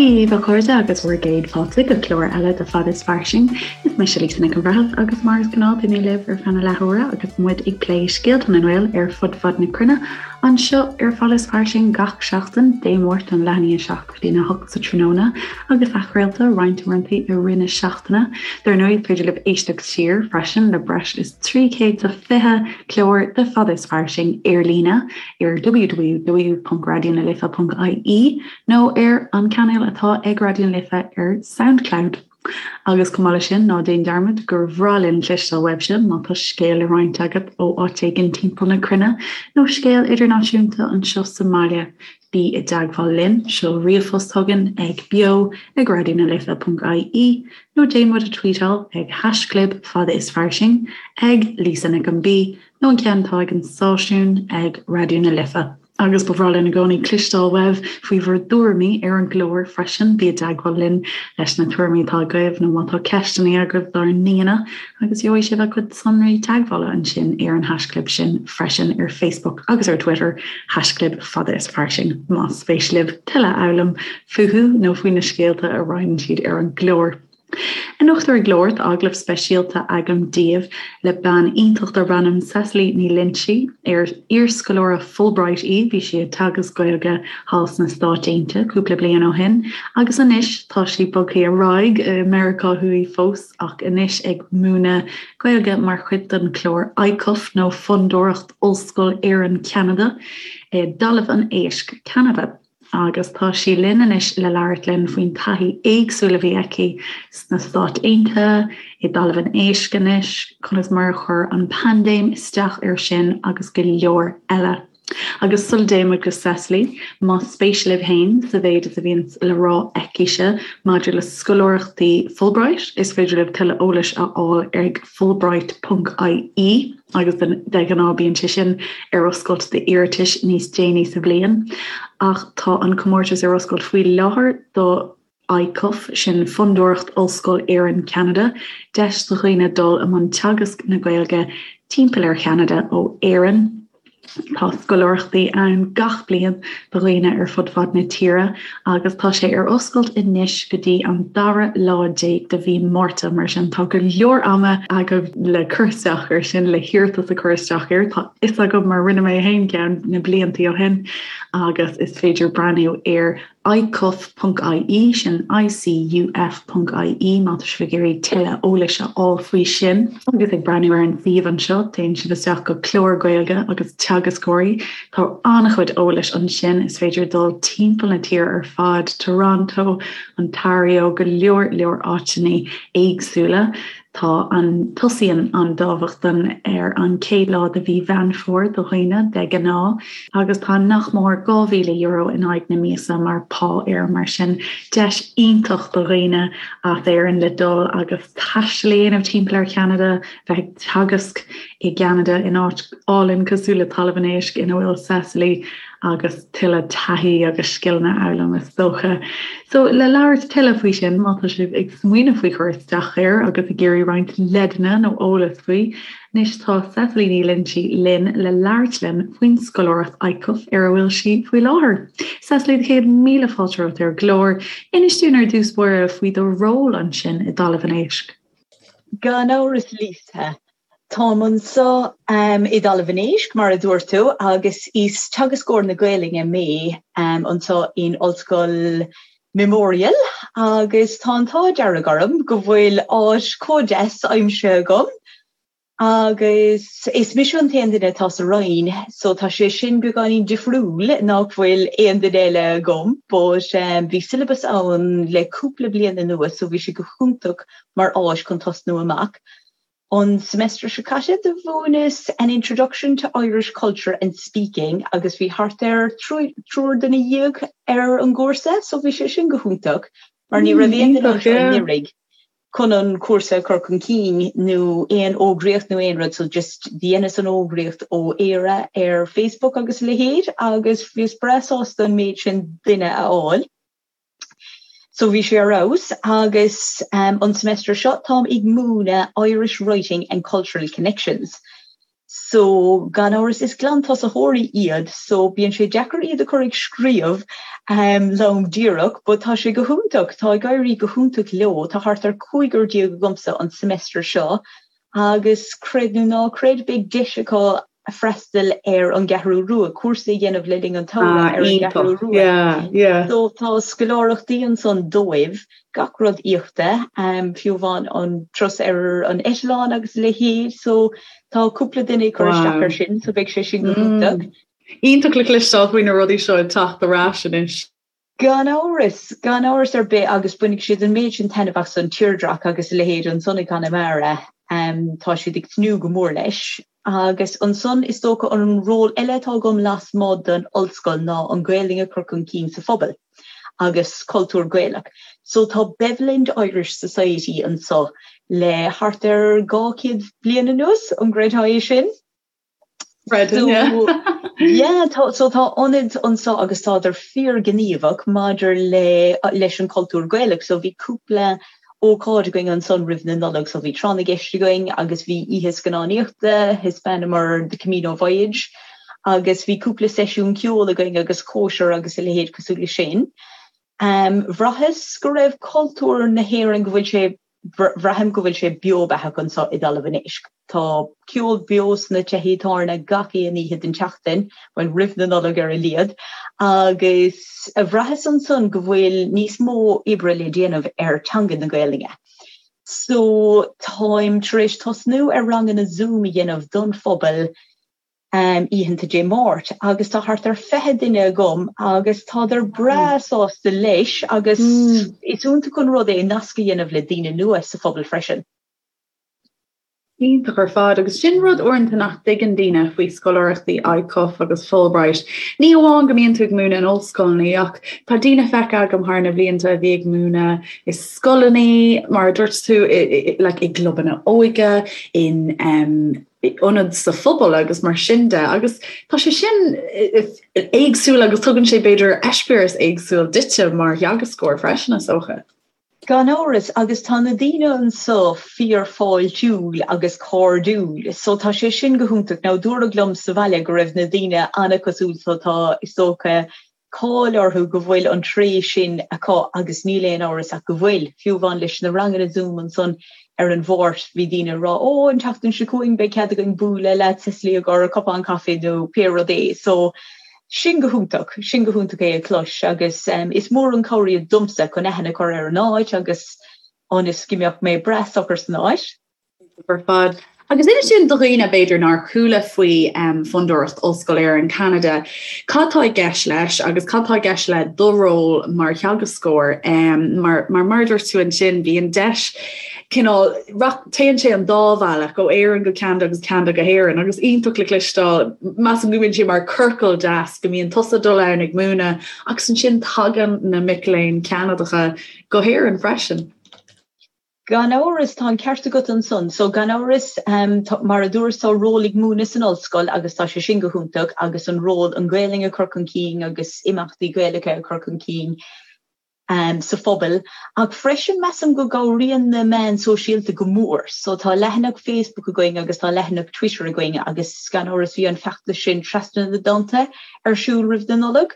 Dia dhaoibh a chairde agus bhur gcéad fáilte go clár eile de Fada is Fairsing. Is mise Lisa Nic an Bhreithimh agus mar is gnáth beidh mé libh ar feadh na leathuaire agus muid ag plé scéalta na nGael ar fud fad na cruinne anseo ar Fada is Fairsing gach seachtain, Dé Máirt ón leath i ndiaidh a 7 go dtí a 8 sa tráthnóna agus athchraolta roinnt uaireanta i rith na seachtaine. Dar ndóigh, is féidir libh éisteacht siar freisin le breis is 320 clár de Fada is Fairsing ar líne ar www.raidionalife.ie nó ar an cainéal atá ag Raidió na Life ar Soundcloud. Agus chomh maith leis sin, ná déan dearmad gur bhreá linn cloisteáil uaibhse má tá scéal le roinnt agat ó áit éigin timpeall na cruinne nó scéal idirnáisiúnta anseo sa mbaile. Bí i dteagmháil linn, seol ríomhphost chugainn ag beo ag raidionalife.ie nó déan muid a tweetáil ag haischlib fada is fairsing ag Lisa Nic an B nó an ceann atá ag an stáisiún ag Raidió na Life. Agus ba bhreá linn i gcónaí cloisteáil uaibh faoi bhur dtuairimí ar an gclár freisin. Bí i dteagmháil linn leis na tuairimí atá agaibh nó má tá ceisteanna agaibh dár n-aíonna agus gheobhaidh sibh a gcuid sonraí teagmhála ansin ar an haischlib sin freisin ar Facebook agus ar Twitter, haischlib fada is fairsing, más spéis libh tuilleadh a fhoghlaim fúthu nó faoi na scéalta a roinneann siad ar an gclár. Anocht ar an gclár tá agallamh speisialta agam daoibh le bean iontach darb ainm Cecily Ní Loinsigh, ar iarscoláire Fulbright í, bhí sí ag teagasc Gaeilge thall sna Stáit Aontaithe cúpla bliain ó shin agus anois tá sí bogtha ar aghaidh i Meiriceá Thuaidh fós ach anois ag múineadh Gaeilge mar chuid den chlár ICUF nó Fondúireacht Ollscoil Éireann-Ceanada i dTalamh an Éisc, Ceanada. Agus tá sí linn anois le labhairt linn faoin taithí éagsúil a bhí aici sna Stáit Aontaithe, i dTalamh an Éisc anois, conas mar a chuir an paindéim isteach air sin agus go leor eile. Agus sula dtéann muid go Cecily, más spéis libh féin sa mhéid is a bhíonn le rá aicise maidir le scoláireachtaí Fulbright, is féidir libh tuilleadh eolais a fháil ag fulbright.ie. agus de ghnáth bíonn sé sin ar oscailt d'iarratais níos déanaí sa bhliain, ach tá an comórtas ar oscailt faoi láthair do ICUF, sin Fondúireacht Ollscoil Éireann Ceanada, deis do dhaoine dul i mbun teagasc na Gaeilge timpeall ar Cheanada ó Éirinn. Tá scoláireachtaí ann gach bliain do dhaoine ar fud fad na tíre agus tá sé ar oscailt anois go dtí an dara lá déag de mhí Márta, mar sin tá go leor ama agaibh le cur isteach air sin, le hiarratas a chur isteach air. Tá fhios agam mar rinne mé féin ceann na bliantaí ó shin agus is féidir breathnú ar icuf.ie, sin ICUF.ie, má tá sibh ag iarraidh tuilleadh eolais a fháil faoi sin. Agus ag breathnú ar an suíomh anseo, téann sibh isteach go Clár Gaeilge agus Teagascóirí. Tá an-chuid eolais ansin, is féidir dul timpeall na tíre ar fad, Toronto, Ontario, go leor leor áiteanna éagsúla. Tá an, tosaíonn an dámhachtain ar an chéad lá de mhí Mheán Fómhair do dhaoine, de ghnáth, agus tá nach mór €2,000 in aghaidh na míosa mar phá air, mar sin deis iontach do dhaoine as Éirinn le dul agus taisteal a dhéanamh timpeall ar Cheanada, bheith ag teagasc i gCeanada in áit álainn cosúil le Talamh an Éisc ina bhfuil Cecily agus tuilleadh taithí agus scileanna a fhoghlaim is dócha. So le labhairt tuilleadh faoi sin, má tá sibh ag smaoineamh faoi chur isteach air agus ag iarraidh roinnt leideanna nó eolas faoi, anois tá Cecily Ní Loinsigh linn le labhairt linn faoin scoláireacht ICUF ar a bhfuil sí faoi láthair. Cecily, 100,000 fáilte romhat ar an gclár. Inis dúinn ar dtús báire faoi do ról ansin i dTalamh an Éisc. Gan amhras Lisa, Táim anseo i dTalamh an Éisc, mar a dúirt tú, agus is teagascóir na Gaelainne mé anseo in Ollscoil Memorial agus tá an t-ádh dearg orm go bhfuil áit chomh deas aimsithe agam agus is mise an t-aon duine atá sa Roinn so tá sé sin beagáinín difriúil nach bhfuil aon duine eile agam but bhí syllabus ann le cúpla bliain anuas so bhí sé go hiontach mar áis chun tosnú amach. An semester seo caite do mhúineas An Introduction to Irish Culture and Speaking agus bhí thart ar triúr duine dhéag ar an gcúrsa so bhí sé sin go hiontach mar ní raibh aon duine anseo anuraidh chun an cúrsa a chur chun cinn nó aon fhógraíocht nó aon rud so just dheineas an fhógraíocht ó Éire ar Facebook agus a leithéid agus bhíos breá sásta an méid sin duine a fháil. So bhí sé ar fheabhas agus an semester seo táim ag múineadh Irish Writing and Cultural Connections. So, gan amhras, is glantosaitheoirí iad, so bíonn sé deacair iad a chur ag scríobh lom díreach, but tá sé go hiontach, tá ag éirí go hiontach leo, tá thart ar 15 agamsa an semester seo agus creid nó ná creid, beidh deis acu freastal ar an gCeathrú Rua, cúrsa a dhéanamh le linn an tsamhraidh ar an gCeathrú Rua. So tá scoláireachtaí ansan dóibh, gach rud íochta, fiú amháin an turas ar an eitleán agus a leithéid. So tá cúpla duine ag cur isteach air sin, so beidh sé sin go hiontach. Iontach le cloisteáil faoi na rudaí seo ag teacht ar ais anois. Gan amhras, gan amhras ar bith agus bainfidh siad an méid sin taitneamh as an tírdreach agus a leithéid ansan i gConamara. Tá siad ag tnúth go mór leis. Agus ansan is dócha an ról eile atá agam lasmuigh den ollscoil ná an Ghaelainn a chur chun cinn sa phobal agus cultúr Gaelach. So tá Beveland Irish Society anso le thart ar 200 bliain anuas, an gcreidfeá é sin? Creidim, yeah. Yeah, tá, so tá ionad anso agus tádar fíorghníomhach maidir le, leis an cultúr Gaelach. So bhí cúpla ócáid againn ansan roimh na Nollag, so bhí tráth na gceist againn agus bhí oíche scannánaíochta, thaispeánamar The Camino Voyage agus bhí cúpla seisiún ceoil againn agus cóisir agus a leithéid cosúil le sin. Bhraitheas go raibh cultúr na hÉireann, go bhfuil sé Braithim go bhfuil sé beo beathach anso i dTalamh an Éisc. Tá ceol beo sna tithe tábhairne gach aon oíche den tseachtain, bhuel, roimh na Nollag ar a laghad, agus bhraitheas ansan go bhfuil níos mó oibre le déanamh ar teanga na Gaelainne. So, táim tar éis tosnú ar ranganna Zoom a dhéanamh don phobal oícheanta Dé Máirt agus tá thart ar 20 duine agam agus tádar breá sásta leis agus is iontach an rud é nasc a dhéanamh le daoine nua sa phobal freisin. Iontach ar fad agus sin rud uaireanta nach dtuigeann daoine faoi scoláireachtaí ICUF agus Fulbright. Ní amháin go mbíonn tú ag múineadh in ollscoileanna ach tá daoine feicthe agam thar na blianta a bhí ag múineadh i scoileanna, mar a dúirt tú, like i gclubanna óige, in ionaid sa phobal agus mar sin de agus tá sé sin éagsúil agus tugann sé b'fhéidir eispéireas éagsúil duitse mar theagascóir freisin is dócha. Gan amhras, agus tá na daoine anso fíor-fháiltiúil agus cairdiúil so tá sé sin go hiontach. Now dúradh liom sa bhaile go raibh na daoine an-cosúil so tá is dócha cáil orthu go bhfuil an tréith sin acu agus níl aon amhras ach go bhfuil. Fiú amháin leis na ranganna Zoom ansan ar an Mháirt bhí daoine ag rá 'Ó, an tseachtain seo chugainn beidh cead againn bualadh leat Cecily i gcomhair cupán caife nó pé rud é. So, sin go hiontach, sin go hiontach é a chlos agus is mór an cabhair iad domsa chun aithne a chur ar an áit agus ionas go mbeadh mé breá socair san áit. ar fad. Agus inis dúinn do dhaoine, b'fhéidir, nár chuala faoi Fondúireacht Ollscoil Éireann Ceanada, cad tá i gceist leis agus cad tá i gceist le do ról mar theagascóir? Mar mar a dúirt tú ansin, bíonn deis cineál, téann sé an dá bhealach, ó Éirinn go Ceanada agus Ceanada go hÉirinn agus iontach le cloisteáil, measaim go mbíonn sé mar ciorcal deas go mbíonn tusa ag dul ann ag múineadh agus ansin tagann na mic léinn Ceanadacha go hÉirinn freisin. Gan amhras, tá an ceart agat ansan. So, gan amhras, mar a dúras, tá ról ag múineadh san ollscoil agus tá sé sin go hiontach agus an ról an Ghaelainn a chur chun cinn agus imeachtaí Gaelacha a chur chun cinn sa phobal. Ach freisin, measaim go gcabhraíonn na meáin sóisialta go mór. So, tá leathanach Facebook againn agus tá leathanach Twitter againn agus gan amhras bhí an feachtas sin Trasna na dTonnta ar siúl roimh na Nollag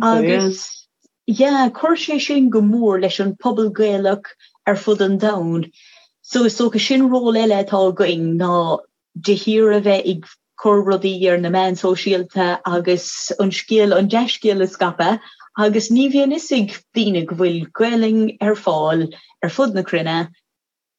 agus Yeah, chuir sé sin go mór leis an pobal Gaelach ar fud an domhain. So is dócha sin ról eile atá againn ná de shíor a bheith ag cur rudaí ar na meáin sóisialta agus an scéal, an dea-scéal a scaipeadh agus ní bhíonn fhios ag daoine go bhfuil Gaelainn ar fáil ar fud na cruinne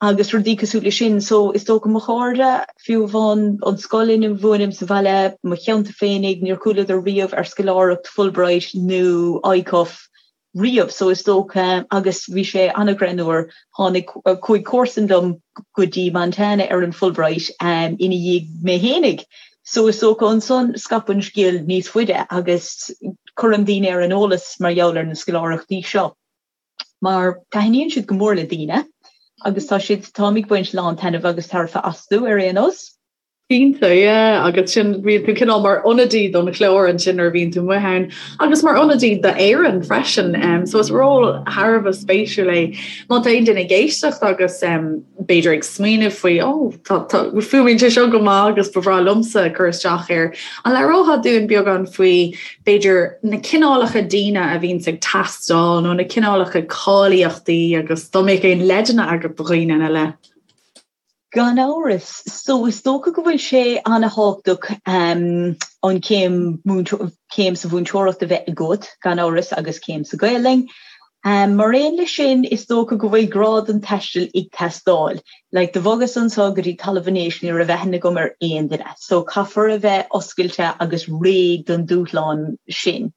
agus rudaí cosúil leis sin. So is dócha mo chairde, fiú amháin an scoil ina mhúinim sa bhaile, mo cheantar féinig, níor chualadar riamh ar scoláireacht Fulbright nó ICUF riamh. So is dócha, agus bhí sé an-ghreannmhar, tháinig, chuaigh comharsan liom go dtí Montana ar an Fulbright ina dhiaidh mé fhéinig. So is dócha ansan scaip an scéal níos faide agus cuirim daoine ar an eolas mar gheall ar na scoláireachtaí seo. mar taitníonn siad go mór le daoine agus tá siad, táim ag baint lán taitneamh agus tairbhe astu ar aon nós. Cinnte, yeah, agus sin bíonn tú cineál mar ionadaí don chlár ansin nuair a bhíonn tú amuigh ann agus mar ionadaí d'Éirinn freisin. Um, so is ról thar a bheith spéisiúil é. Má tá aon duine ag éisteacht agus um, b'fhéidir ag smaoineamh faoi oh, fuaimníonn sé seo go maith agus ba bhreá liomsa cur isteach air. An labhrófá dúinn beagán faoi b'fhéidir na cineálacha daoine a bhíonns ag teastáil nó na cineálacha cáilíochtaí agus dá mbeadh aon leideanna agat do dhaoine ina leith? Gan amhras. So is dócha go bhfuil sé ana-thábhachtach an chéim céim sa mhúinteoireacht a bheith agat, gan amhras, agus céim sa Ghaelainn. Mar aon leis sin, is dócha go bhfuil grá don taisteal ag teastáil. Like, do bhogas anso go dtí Talamh an Éisc, ní raibh aithne agam ar aon duine. So caithfear a bheith oscailte agus réidh don dúshlán sin.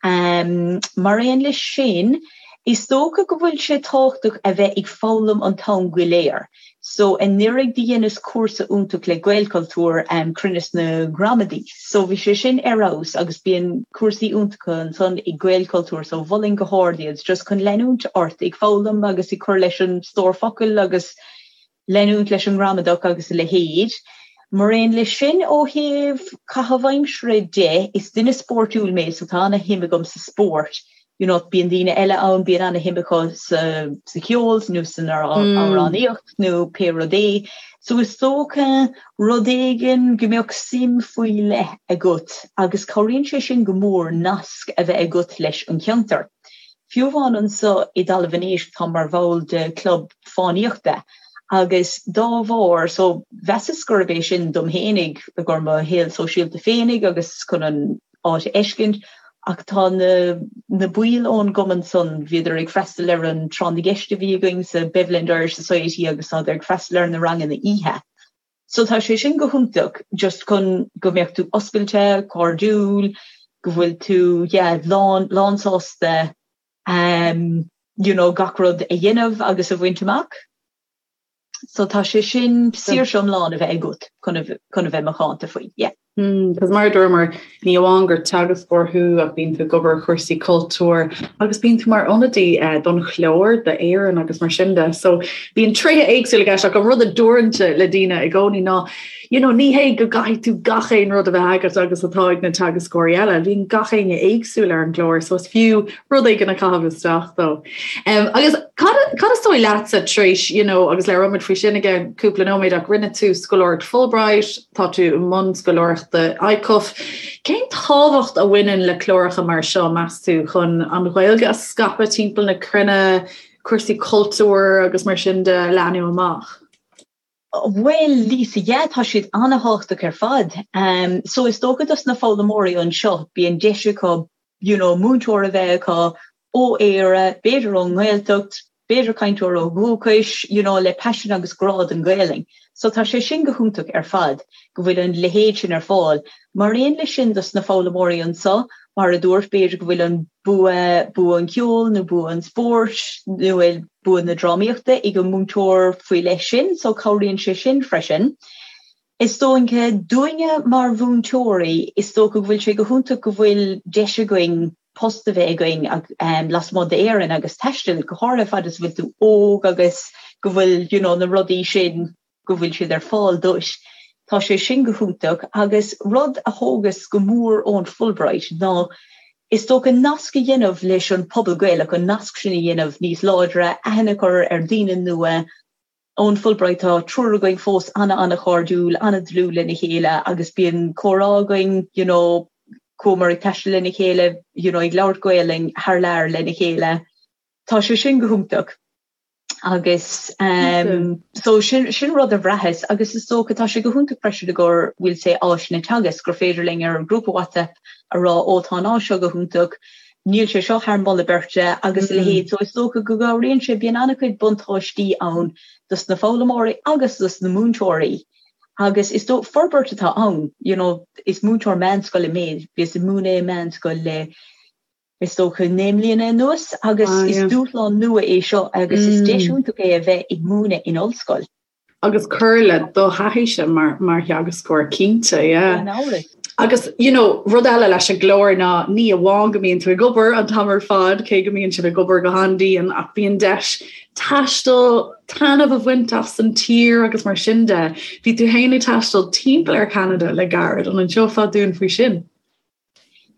Mar aon leis sin, is dócha go bhfuil sé tábhachtach a bheith ag foghlaim an t-am go léir. So anuraidh do dheineas cúrsa iontach le Gaelchultúr, Cruinneas na Gramadaí. So bhí sé sin ar fheabhas agus bíonn cúrsaí iontacha ansan ag Gaelchultúr so mholfainn go hard iad just chun leanúint ort ag foghlaim agus ag cur leis an stór focal agus leanúint leis an ngramadach agus a leithéid. Mar aon leis sin, ó thaobh caitheamh aimsire de, is duine spóirtiúil mé so tá ana-shuim agam sa spórt. You know, bíonn daoine eile ann, bíonn ana-shuim acu sa sa cheol nó san amhránaíocht nó pé rud é. So is dócha rud éigin go mbeadh suim faoi leith agat agus cabhraíonn sé sin go mór nasc a bheith agat leis an cheantar. Fiú amháin anso i dTalamh an Éisc táim mar bhall de chlub fánaíochta agus dá bharr so mheasas gurb é sin dom fhéinig i gcomhair mo shaol sóisialta féinig agus chun an áit a fheiscint ach tá na na baill ón gcumann san bhíodar ag freastal ar an tráth na gceist a bhí againn sa Beveland Irish Society agus tádar ag freastal ar na ranganna oíche. So tá sé sin go hiontach just chun go mbeadh tú oscailte, cairdiúil, go bhfuil tú yeah lán lán sásta um you know gach rud a dhéanamh agus a bhaint amach. So tá sé sin saoirse iomlán a bheith agat chun a chun a bheith macánta faoi, yeah. Cos mar a dúramar, ní amháin gur teagascóir thú ach bíonn tú ag obair ar chúrsaí cultúir agus bíonn tú mar ionadaí don chlár d'Éirinn agus mar sin de. So bíonn tréithe éagsúla i gceist ach an rud a deirimse le daoine i gcónaí ná you know, ní hé go gcaithfidh tú gach aon rud a bheith agat agus atá ag na teagascóirí eile. Bíonn gach éinne éagsúil ar an gclár so is fiú rud éigin a chaitheamh isteach dó. Um, agus cad, cad is dóigh leatsa tar éis, you know, agus labhróimid faoi sin i gceann cúpla nóiméad ach rinne tú scoláireacht Fulbright, tá tú i mbun scoláireachta ICUF. Cén tábhacht a bhaineann le cláracha mar seo, meas tú, chun an Ghaeilge a scaipeadh timpeall na cruinne, cúrsaí cultúir agus mar sin de a leathnú amach? Bhuel, Lisa, yeah, tá siad an-thábhachtach ar fad. So is dócha dos na foghlaimeoirí anseo, bíonn deis acu, you know, múinteoir a bheith acu ó Éire, b'fhéidir ón nGaeltacht, b'fhéidir cainteoir ó dhúchais, you know, le paisean agus grá don Ghaelainn. So tá sé sin go hiontach ar fad, go bhfuil an leithéid sin ar fáil. Mar aon leis sin dos na foghlaimeoirí anseo, mar a dúirt, b'fhéidir go bhfuil an bua, bua an cheoil nó bua an spóirt nó bua na drámaíochta ag an múinteoir faoi leith sin, so cabhraíonn sé sin freisin. Is dócha dúinne mar mhúinteoirí, is dócha go bhfuil sé go hiontach go bhfuil deis againn post a bheith againn lasmuigh d'Éirinn agus taisteal, go háirithe fad is a bhfuil tú óg agus go bhfuil you know na rudaí sin go bhfuil siad ar fáil duit. Tá sé sin go hiontach agus rud a thógas go mór ón Fulbright ná is dócha nasc a dhéanamh leis an pobal Gaelach, an nasc sin a dhéanamh níos láidre, aithne a chur ar daoine nua. Ón Fulbright tá triúr againn fós ana-ana-chairdiúil, ana-dlúth lena chéile agus bíonn comhrá againn you know chuamar ag taisteal lena chéile you know ag labhairt Gaelainn thar lear lena chéile. Tá sé sin go hiontach. Agus so sin sin rud a bhraitheas agus is dócha tá sé go hiontach freisin i gcomhair we'll say áiseanna teagaisc gur féidir linn ar an grúpa WhatsApp a rá ó tá an áis seo go hiontach, níl sé seo thar moladh beirte agus a leithéid. So is dócha go gcabhraíonn sé, bíonn an-chuid buntáistí ann dos na foghlaimeoirí agus dos na múinteoirí agus is dócha forbairt atá ann, you know is múinteoir meánscoile mé, bhíos ag múineadh i meánscoil le is dócha, 9 mbliana anuas agus is dúshlán nua é seo agus is deis iontach é a bheith ag múineadh in ollscoil. Agus cur le do thaithíse mar mar theagascóir cinnte, yeah. Gan amhras. Agus you know, rud eile leis an gclár ná ní amháin go mbíonn tú ag obair an t-am ar fad, cé go mbíonn sibh ag obair go han-dian, ach bíonn deis taisteal, taitneamh a bhaint as an tír agus mar sin de. Bhí tú féin ag taisteal timpeall ar Cheanada le gairid, an inseofá dúinn faoi sin?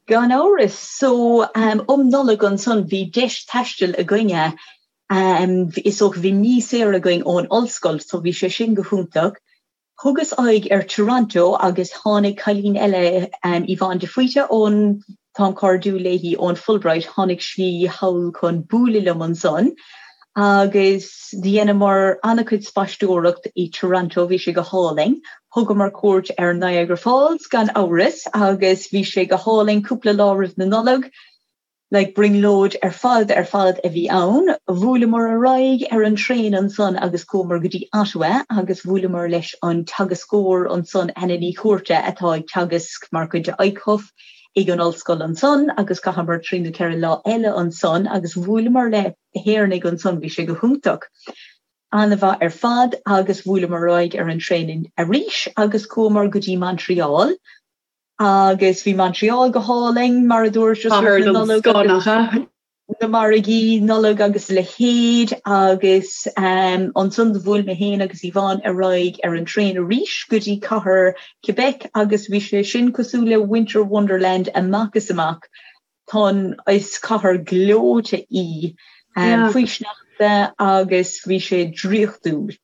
Gan amhras. So um Nollaig ansan bhí deis taistil againne. Is dócha bhí mí saor againn ón ollscoil so bhí sé sin go hiontach. Thugas aghaidh ar Toronto agus tháinig cailín eile, Yvonne de Faoite ón, táim cairdiúil léi, ón Fulbright, tháinig sí thall chun bualadh liom ansan agus dheineamar an-chuid spaisteoireacht i Toronto, bhí sé go hálainn. Thugamar cuairt ar Niagara Falls gan amhras agus bhí sé go hálainn cúpla lá roimh na Nollag. Like brionglóid ar fad ar fad a bhí ann. Bhuaileamar ar aghaidh ar an traein ansan agus chuamar go dtí Ottawa agus bhuaileamar leis an teagascóir ansan, Anna Ní Chuarta, atá ag teagasc mar chuid de ICUF ag an ollscoil ansan agus chaitheamar trí nó ceithre lá eile ansan agus bhuaileamar le hÉireannaigh ansan, bhí sé go hiontach. An-mhaith ar fad agus bhuaileamar ar aghaidh ar an traein arís agus chuamar go dtí Montreal Agus bhí Montreal go hálainn, mar a dúirt, just roimh na Nollag agus na margaí Nollag agus a leithéid agus ansan do bhuail mé féin agus Yvonne ar aghaidh ar an traein arís go dtí cathair Quebec agus bhí sé sin cosúil le Winter Wonderland amach is amach. Tá an, is cathair gleoite í faoi sneachta agus bhí sé draíochtúil.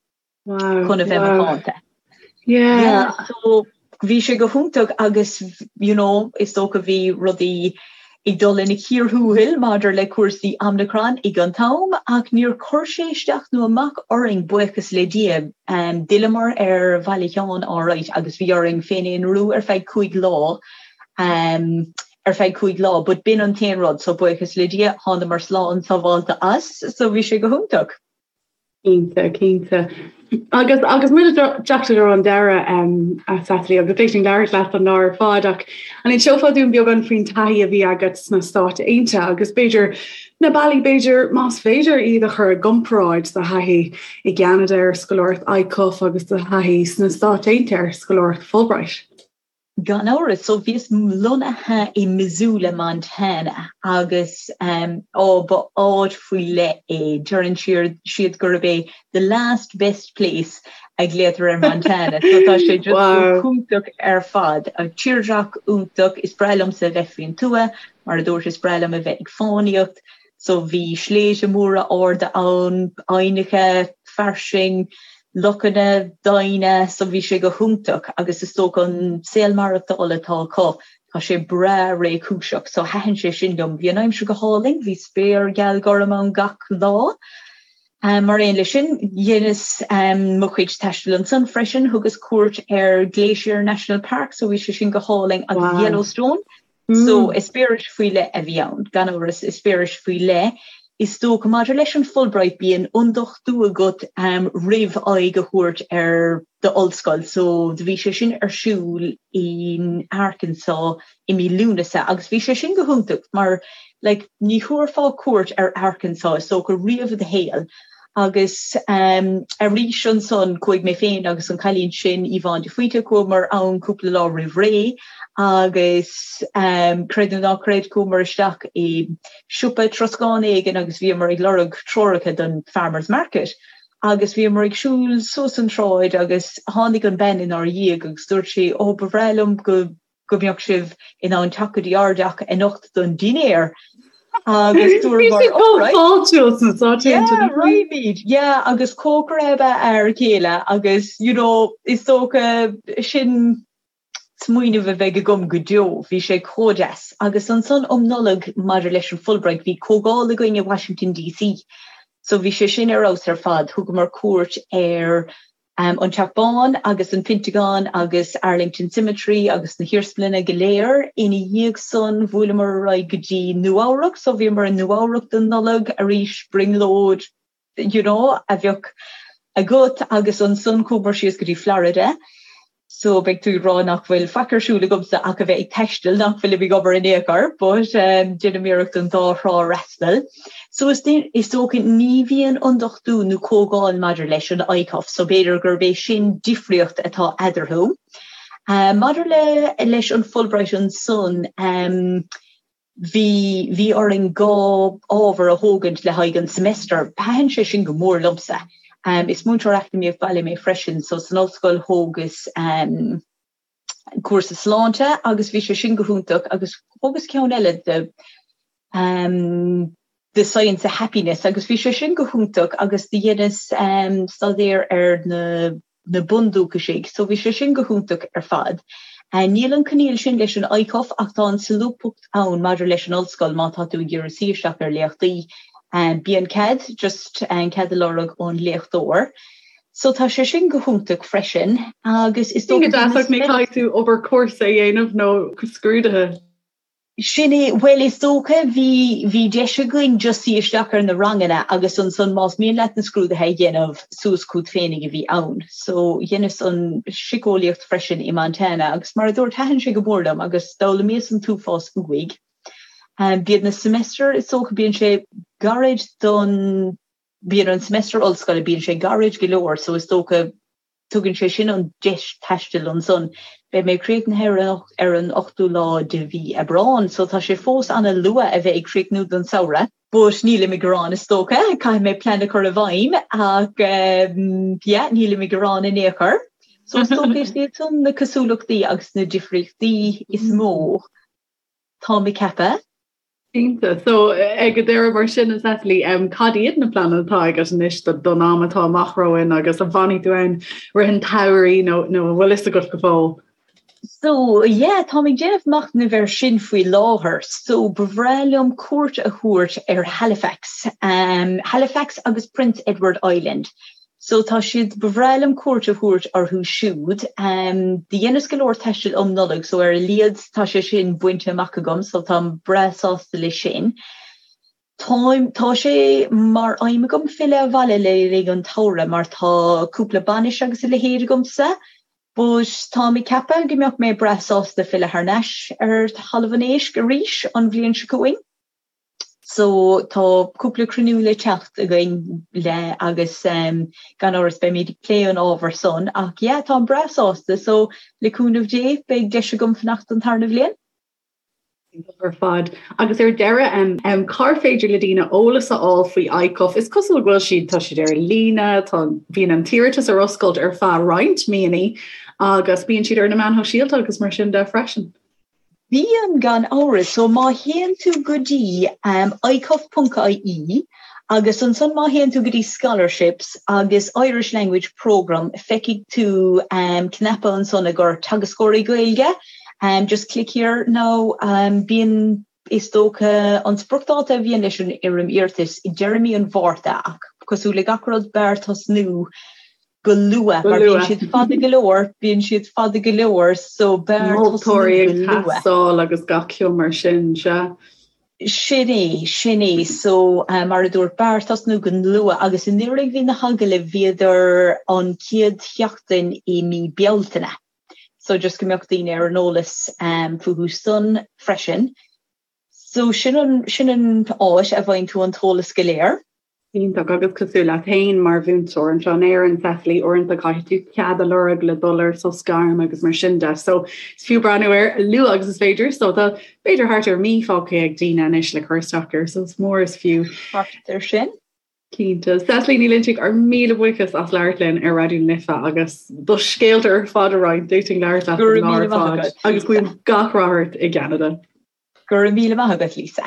chun a bheith macánta. Yeah, so bhí sé go hiontach agus you know is dócha bhí rudaí ag dul ina cíor thuathail maidir le cúrsaí Omicron ag an t-am ach níor chuir sé isteach nó amach orainn buíochas le Dia. D'fhilleamar ar Bhaile Sheáin alright agus bhí orainn féin-aonrú ar feadh cúig lá ar feadh cúig lá but b'in an t-aon rud so buíochas le Dia thánamar slán sábhálta as so bhí sé go hiontach. Cinnte, cinnte. Agus agus muid ag teacht ar an deireadh a Cecily, agus thig linn labhairt leat an lá ar fad ach an inseofá dúinn beagán faoin taithí a bhí agat sna Stáit Aontaithe agus b'fhéidir na bealaí b'fhéidir más féidir iad a chur i gcomparáid do thaithí i gCeanada ar scoláireacht ICUF agus do thaithí sna Stáit Aontaithe ar scoláireacht Fulbright. Gan amhras. So bhíos lonnaithe i Missoula, Montana agus á ba áit faoi leith é. Deireann siad gurb é the last best place a ghlaotar ar Montana. So tá sé just go hiontach ar fad. Tírdhreach iontach. Is breá liomsa a bheith faoin tuath. Mar a dúirt is breá liom a bheith ag fánaíocht. So bhí sléibhte móra arda ann, aibhneacha fairsing, lochanna doimhne, so bhí sé go hiontach agus is dócha an saol maireachtála atá acu, tá sé breá réchúiseach, so thaitin sé sin liom. Bhí an aimsir go hálainn, bhí spéir gheal gorm ann gach lá. Mar aon leis sin, dheineas mo chuid taistil ansan freisin, thugas cuairt ar Glacier National Park, so bhí sé sin go hálainn agus Yellowstone, So, eispéireas faoi leith a bhí ann, gan amhras, eispéireas faoi leith. Is dócha, maidir leis an Fulbright, bíonn ionduchtú agat roimh aghaidh a thabhairt ar d'ollscoil. So, do bhí sé sin ar siúl in Arkansas i mí Lúnasa agus bhí sé sin go hiontach mar, like, ní thabharfá cuairt ar Arkansas, is dócha, riamh i do shaol. Agus arís ansan chuaigh mé féin agus an cailín sin, Yvonne de Faoite, chuamar ann cúpla lá roimh ré agus creid nó ná creid chuamar isteach i siopa troscáin éigin agus bhíomar ag lorg treoracha don Farmers Market agus bhíomar ag siúl suas an tsráid agus tháinig an bean inár dhiaidh agus dúirt sí, 'Ó ba bhreá liom go go mbeadh sibh in ann teacht go dtí ár dteach anocht don dinnéar agus dúramar alright. Fáiltiúil sna Stáit Aontaithe. Yeah, raghaimid, yeah, agus cócaire ab ea a fhear céile agus you know is dócha sin smaoineamh a bheidh agam go deo, bhí sé chomh deas. Agus ansan um Nollaig maidir leis an Fulbright bhí comhdháil againn i Washington DC so bhí sé sin ar fheabhas ar fad, thugamar cuairt ar An Teach Bán agus an Pentagon agus Arlington Cemetery agus na hiarsmalanna go léir. Ina dhiaidh san bhuaileamar ar aghaidh go dtí Nua Eabhrac so bhíomar i Nua Eabhrac don Nollaig arís, brionglóid you know a bheadh agat agus ansan chuamar síos go dtí Florida so beidh tú ag rá nach bhfuil faic ar siúl agamsa ach a bheith ag taisteal, nach bhfuilim ag obair in aon chor but déanaim iarracht an dá thrá a fhreastal. So is dócha ní bhíonn ionduchtú nó comhdháil maidir leis an ICUF so b'fhéidir gurb é sin difríocht atá eadarthu. Maidir le leis an Fulbright ansan, bhí bhí orainn 2 ábhar a thógaint le haghaidh an semester. Thaitin sé sin go mór liomsa. Is múinteoir eacnamaíocht baile mé freisin, so san ollscoil thógas cúrsa sláinte agus bhí sé sin go hiontach agus thógas ceann eile de The Science of Happiness agus bhí sé sin go hiontach agus do dheineas staidéar ar na na bundúchaisigh so bhí sé sin go hiontach ar fad. Níl an coinníoll sin leis an ICUF ach tá an solúbthacht ann maidir leis an ollscoil má tá tú ag iarraidh suí isteach ar léachtaí. Bíonn cead, just cead a lorg ón léachtóir. So tá sé sin go hiontach freisin agus is dócha go deas ach ní caithfidh tú obair cúrsa a dhéanamh nó scrúduithe. Sin é, bhuel is dócha bhí, bhí deis againn just suí isteach ar na ranganna agus ansan más mian leat na scrúduithe a dhéanamh suas chugat féinig a bhí ann. So dheineas an siceolaíocht freisin i Montana agus mar a dúirt thaitin sé go mór liom agus d'fhoghlaimíos an t-uafás uaidh. Bíonn na semester is dócha bíonn sé gairid don, bíonn an semester ollscoile bíonn sé gairid go leor so is dócha Tugann sé sin an deis taistil ansan. Beidh mé críochnaithe ar an ochtú lá de mhí Aibreán so tá sé fós ana luath a bheith ag críochnú don samhradh. But nílim ag gearán is dócha, caithfidh mé plean a chur i bhfeidhm ach yeah nílim ag gearán in aon chor. So is dócha is iad san na cosúlachtaí agus na difríochtaí is mó táim ag ceapadh. Cinnte. So, ag an deireadh mar sin, a Cecily, cad iad na pleananna atá agat anois don am atá amach romhainn agus an bhfanfaidh tú ann rith an tsamhraidh nó nó an bhfuil fhios agat go fóill? So, yeah, táim ag déanamh machnaimh air sin faoi láthair. So, ba bhreá liom cuairt a thabhairt ar Halifax, Halifax agus Prince Edward Island. So tá siad, ba bhreá liom cuairt a thabhairt orthu siúd. Do dheineas go leor taistil um Nollaig so ar a laghad tá sé sin bainte amach agam so táim breá sásta leis sin. Táim, tá sé mar aidhm agam filleadh abhaile le linn an tsamhraidh mar tá cúpla bainis agus a leithéid agamsa but táim ag ceapadh go mbeadh mé breá sásta filleadh thar n-ais ar Thalamh an Éisc arís an bhliain seo chugainn. So tá cúpla cruinniú le teacht againn le agus gan amhras beimid ag plé an ábhar san ach yeah táim breá sásta so le cúnamh Dé beidh deis agam fanacht an tarna bhliain. Iontach ar fad. Agus ar deireadh, cár féidir le daoine eolas a fháil faoi ICUF? Is cosúil go bhfuil siad, tá siad ar líne, tá, bíonn an t-iarratas ar oscailt ar feadh roinnt míonna agus bíonn siad ar na meáin shóisialta agus mar sin de freisin. Bíonn, gan amhras. So má théann tú go dtí icuf.ie agus ansan má théann tú go dtí Scholarships agus Irish Language Programme feicfidh tú cnaipe ansan i gcomhair teagascóirí Gaeilge. Just click here now. Bíonn, is dócha, an spriocdháta a bhíonn leis an fhoirm iarratais i deireadh mí an Mhárta ach cosúil le gach rud b'fhearr tosnú go luath mar bíonn siad fada go leor, bíonn siad fada go leor so b'fhearr tosnú go luath. Moltóirí ag teastáil agus gach ceann mar sin, sea. Sin é, sin é. So mar a dúirt, b'fhearr tosnú go luath agus anuraidh bhí na hagallaimh, bhíodar an chéad sheachtain i mí Bealtaine. So just go mbeadh daoine ar an eolas fúthu san freisin. So sin an, sin an áit a bhfaigheann tú an t-eolas go léir. Iontach, agus cosúil leat féin mar mhúinteoir anseo in Éirinn, Cecily, uaireanta caithfidh tú cead a lorg le dul ar sos gairme agus mar sin de. So is fiú breathnú air a luaithe agus is féidir. So tá b'fhéidir thart ar mí fágtha ag daoine anois le cur isteach air, so is mór is fiú. Thart ar sin. Cinnte. Cecily Ní Loinsigh, ár míle buíochas as labhairt linn ar Raidió na Life agus do scéalta ar fad a roinnt. D'fhéadfainn labhairt leat Go raibh míle maith agat, Agus guím gach rath ort i gCeanada. Go raibh míle maith agat, Lisa.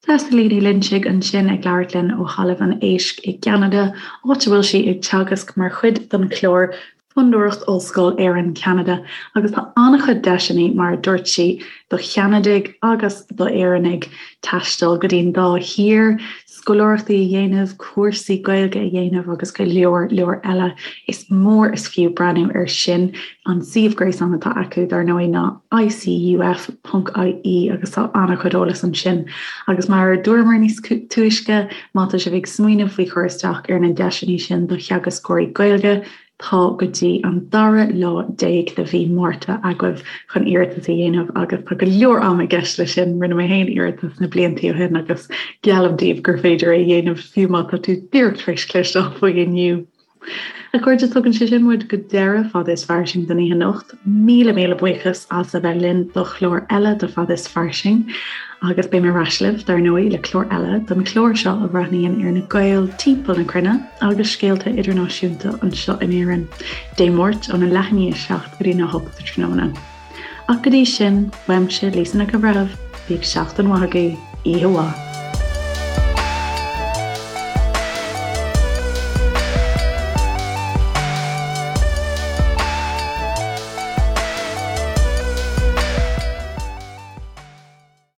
Cecily Ní Loinsigh ansin ag labhairt linn ó Thalamh an Éisc i gCeanada, áit a bhfuil sí ag teagasc mar chuid den chlár Fondúireacht Ollscoil Éireann-Ceanada agus tá an-chuid deiseanna, mar a dúirt sí, do Cheanadaigh agus d'Éireannaigh taisteal go dtí'n dá thír, scoláireachtaí a dhéanamh, cúrsaí Gaeilge a dhéanamh agus go leor leor eile. Is mór is fiú breathnú air sin. An suíomh gréasáin atá acu, dar ndóigh, ná icuf.ie agus tá an-chuid eolais ansin. Agus mar a dúramar níos túisce, má tá sibh ag smaoineamh faoi chur isteach ar na deiseanna sin do theagascóirí Gaeilge, Tá go dtí an dara lá déag de mhí Márta agaibh chun iarratas a dhéanamh agus tá go leor ama i gceist leis sin. Rinne mé féin iarratas na blianta ó shin agus geallaim daoibh gur féidir é a dhéanamh fiú má tá tú díreach tar éis cloisteáil faoi inniu. A chairde, tugann sé sin muid go deireadh Fada is Fairsing don oíche anocht. Míle míle buíochas as a bheith linn do chlár eile de Fada is Fairsing agus beidh mé ar ais libh, dar ndóigh, le clár eile den chlár seo a bhreathnaíonn ar na Gaeil timpeall na cruinne agus scéalta idirnáisiúnta anseo in Éirinn, Dé Máirt óna leath i ndiaidh 7 go dtí na 8 sa tráthnóna. Ach go dtí sin, uaimse, Lisa Nic an Bhreithimh, bíodh seachtain mhaith agaibh, oíche mhaith.